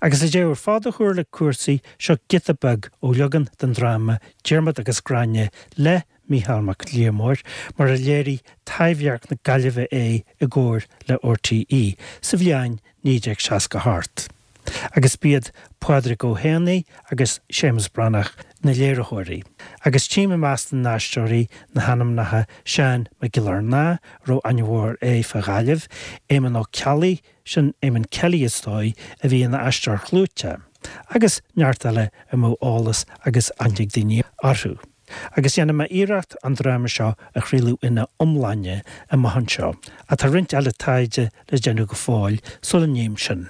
Agus le deireadh ar fad a chur le cúrsaí, seo giota beag ó leagan den dráma Diarmaid agus Gráinne le Mícheál Mac Liammóir, mar a léirigh Taibhdhearc na Gaillimhe é i gcomhar le RTÉ sa bhliain 1968. Agus b'iad Pádraig Ó hÉanaí agus Séamus Breathnach na léiritheoirí. Agus tchím i measc na n-aisteoirí na hainmneacha Seán Mac Giollarnáth, a raibh aithne mhór air fá Ghaillimh, Éamonn Ó Ceallaigh, sin Éamonn Kelly is dóigh, a bhí ina aisteoir chlúiteach, agus neart eile a mbeadh eolas agus aithne ag daoine orthu. Agus dhéanfaidh mé iarracht an dráma seo a chraoladh ina iomláine amach anseo, ach tá roinnt eile taighde le déanamh go fóill sula ndéanaim sin.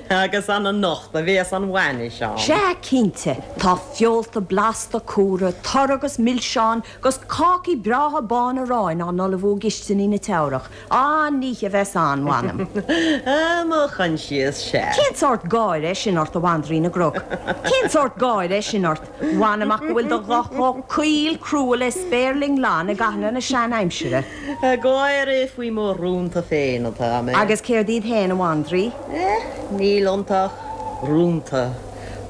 Agus an anocht a bhéas an bhainis ann? Sea, cinnte. Tá feolta blasta cumhra, tur agus milseáin, 'gus cácaí breátha bána aráin á n-ullmhú i gcistiní na Teamhrach. An-oíche a bheas ann, mh'anam. Ah, mo choinsias, sea. Cén sórt gáire é sin ort, a bhandraoi na gcnoc? Cén sórt gáire é sin ort? Mh'anam ach go bhfuil do ghuth chomh caol crua le spéirling lon i gcathanna na sean-aimsire. Ag gáire faoi mo rúnta féin atá mé. Agus céard iad féin, a bhandraoi? Eh, níl iontu ach rúnta.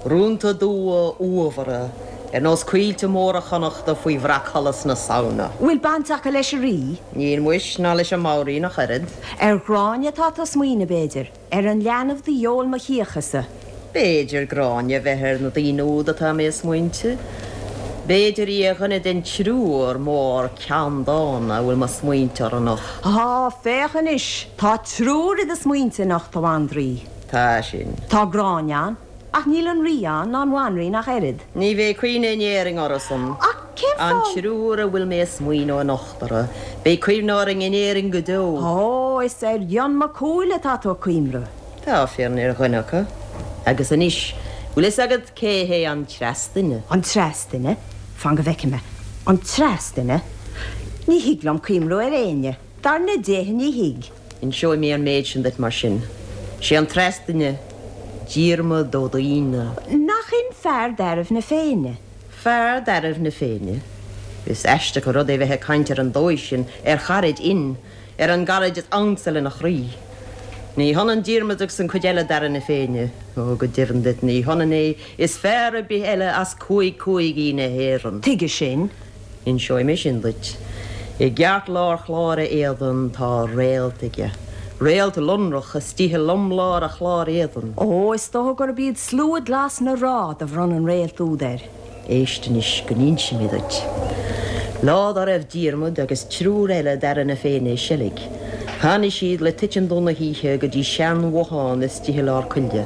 Rúnta dubha uathmhara. Ar nós coillte móra Chonnachta faoi bhreacsholas na Samhna. Bhfuil baint acu leis an Rí? Níl muis, ná leis an mBanríon ach oiread. Ar Ghráinne atá tú ag smaoineamh, b'fhéidir? Ar an leanbh do fheoil mo chíochasa? B'fhéidir Gráinne a bheith ar na daoine úd atá mé ag smaointeamh. B'fhéidir í ar dhuine den triúr mór ceanndána a bhfuil mo smaointe orthu anocht. Á, féach anois! Tá triúr i do smaointe anocht, a bhandraoi. Tá sin. Tá Gráinne ann. Ach níl an Rí ann, ná an Bhanríon ach oiread. Ní bheidh cuimhne in Éirinn orthusan. Ach cén An fáth? triúr a bhfuil mé ag smaoineamh anocht orthu, beidh cuimhne orainn in Éirinn go deo. Ó, is ar Fhionn Mac Cumhaill atá tú ag cuimhreamh. Tá fírinne ar dhuine acu. Agus anois, bhfuil fhios agat cé hé an treas duine? An treas duine? Fan go bhfeicfidh mé. An treas duine? Ní thig liom cuimhreamh ar éinne. Dar na déithe ní thig. Inseoidh mé an méid sin duit mar sin. Sé an treas duine Diarmaid Ó Duibhne. Nach in fear d'fhearaibh na Féinne? Fear d'fhearaibh na Féinne? Is aisteach an rud é bheith ag caint ar an dóigh sin ar charaid Fhinn, ar an gcaraid is ansa lena chroí. Ní hionann Diarmaid agus an chuid eile d'fhearaibh na Féinne. Ó, go deimhin duit, ní hionann é is fear ar bith eile as cúig cúigí na hÉireann. Tuige sin? Inseoidh mé sin duit. I gceartlár chlár a éadain tá réalt aige. Réalt lonrach istigh i lomlár a chláir éadain. Ó, is dócha gurb iad slua glas na ráth do bhronn an réalt úd air. Éist anois go n-inse mé duit. Lá dá raibh Diarmaid agus triúr eile d'fheara na Féinne ag seilg, tháinig siad le titim dubh na hoíche go dtí sean-bhothán istigh i lár coille,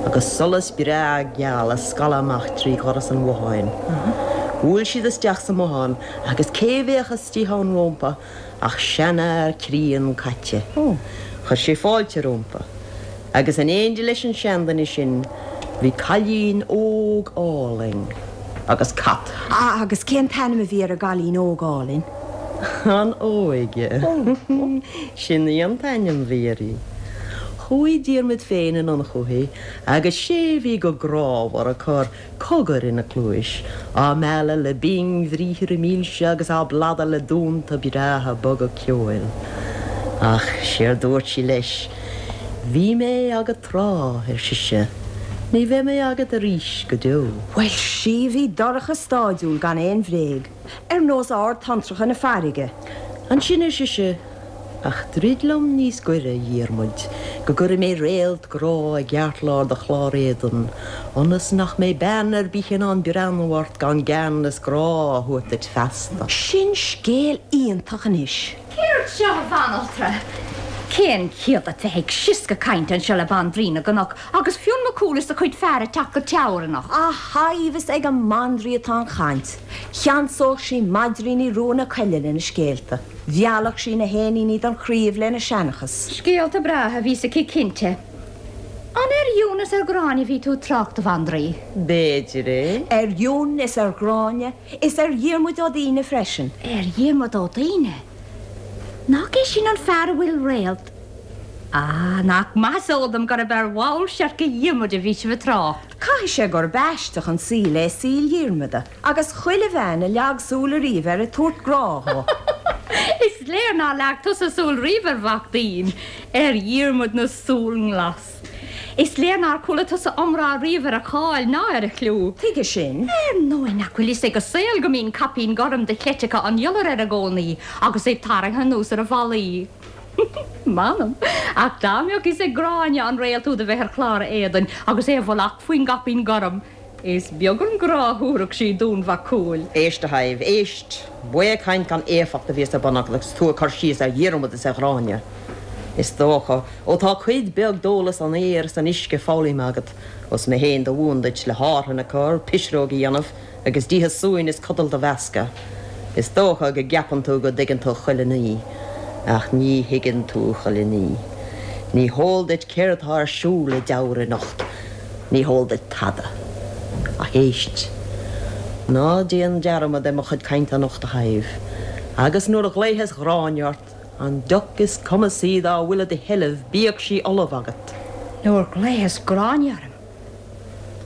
agus solas breá geal ag scaladh amach trí dhoras an bhotháin. Bhuail siad isteach sa mbothán agus cé bheadh istigh ann rómpa ach seanfhear críon caite. Chuir sé fáilte rómpa. Agus in éindí leis an seanduine sin bhí cailín óg álainn agus cat. Agus cén t-ainm a bhí ar an gcailín óg álainn? An Óige. Sin í an t-ainm bhí uirthi. Chuaigh Diarmaid féin anonn chúithi agus sé bhí go grámhar ag cur cogair ina cluais, á mealladh le bingbhriathra milse agus á bladadh le dúnta breátha boga ceoil. Ach séard dúirt sí leis, Bhí mé agat tráth, ar sise, ní bheidh mé agat arís go deo. Bhuel, sea, bhí dorcha stáidiúil gan aon bhréag. Ar nós ard-tonntracha na farraige. Ansin, ar sise, ach druid liom níos gaire, a Dhiarmuid, go gcuirfidh mé réalt grá i gceartlár do chlár éadain, ionas nach mbeidh bean ar bith in ann breathnú ort gan gean is grá a thabhairt duit feasta. Sin scéal iontach anois. Céard seo, a bhanaltra? Cén chiall duit bheith ag sioscadh cainte anseo le Bandraoi na gCnoc agus Fionn Mac Cumhaill is a chuid fear ag teacht go Teamhair anocht? A Shadhbh, is ag an mbandraoi atá an chaint. Cheansódh sí maidríní rua na coille lena scéalta. Mheallfadh sí na héiníní don chraoibh lena seanchas. Scéalta breátha a bhíos aici cinnte. An ar Fhionn is ar Ghráinne a bhí tú ag trácht, a Bhandraoi? B'fhéidir é. Ar Fhionn is ar Ghráinne, is ar Dhiarmuid Ó Duíne freisin. Ar Dhiarmuid Ó Duíne? Nach é sin an fear a bhfuil réalt. Ah, nach maith is eol dom gurb ar bhall seirce Dhiarmuid a bhí sibh ag trácht. Caithfidh sé gurb aisteach an saol é saol Dhiarmuda, agus chuile bhean a leag súil ariamh air ag tabhairt grá dhó. Is léir nár leag tusa súil riamh ar mhac Duín, ar Dhiarmuid na súl nglas. Is léir nár chuala tusa iomrá riamh ar a cháil ná ar a chliú. Tuige sin? Ar ndóigh nach bhfuil fhios ag an saol go mbíonn caipín gorm de chleiteacha an iolair air i gcónaí agus é tarraingthe anuas ar a mhalaí. M'anam, ach dá mbeadh fhios ag Gráinne an réalt úd a bheith ar chlár a éadain agus é i bhfolach faoin gcaipín gorm, Is beag an grá a thabharfadh sí d'Fhionn Mhac Cumhaill. Éist, a Shadhbh, éist! Baothchaint gan éifeacht a bhíos ar bun agat agus tú ag cur síos ar Dhiarmuid is ar Ghráinne. Is dócha, ó tá cuid bheag d'eolas an aeir is an uisce foghlamtha agat, ós mé féin do mhúin duit le hárthain a chur, pisreog a dhéanamh, agus díthe suain is codal do mheascadh. Is dócha go gceapann tú go dtuigeann tú chuile ní, ach ní thuigeann tú chuile ní. Ní heol duit céard tá ar siúl i dTeamhair anocht. Ní heol duit tada. Ach éist. Ná déan dearmad ar mo chuid cainte anocht, a Shadhbh, agus nuair a ghlaofas Gráinne ort, an deoch is cumasaí dá bhfuil i do sheilbh, bíodh sí ullamh agat. Nuair ghlaofas Gráinne orm.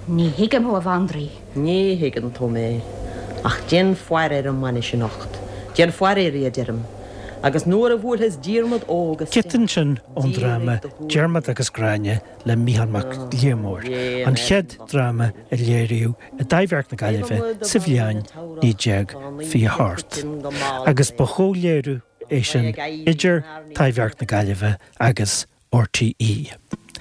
Ní thuigim thú, a Bhandraoi. Ní thuigeann tú mé. Ach déan faire ar an mbainis anocht. Déan faire uirthi, a deirim. Agus nuair a bhuailfeas Diarmaid óg isteach, Giota ansin ón dráma Diarmaid agus Gráinne le Mícheál Mac Liammóir, an chéad dráma a léiríodh i dTaibhdhearc na Gaillimhe sa bhliain 1928, agus ba chomhléiriú é sin idir Taibhdhearc na Gaillimhe agus RTÉ.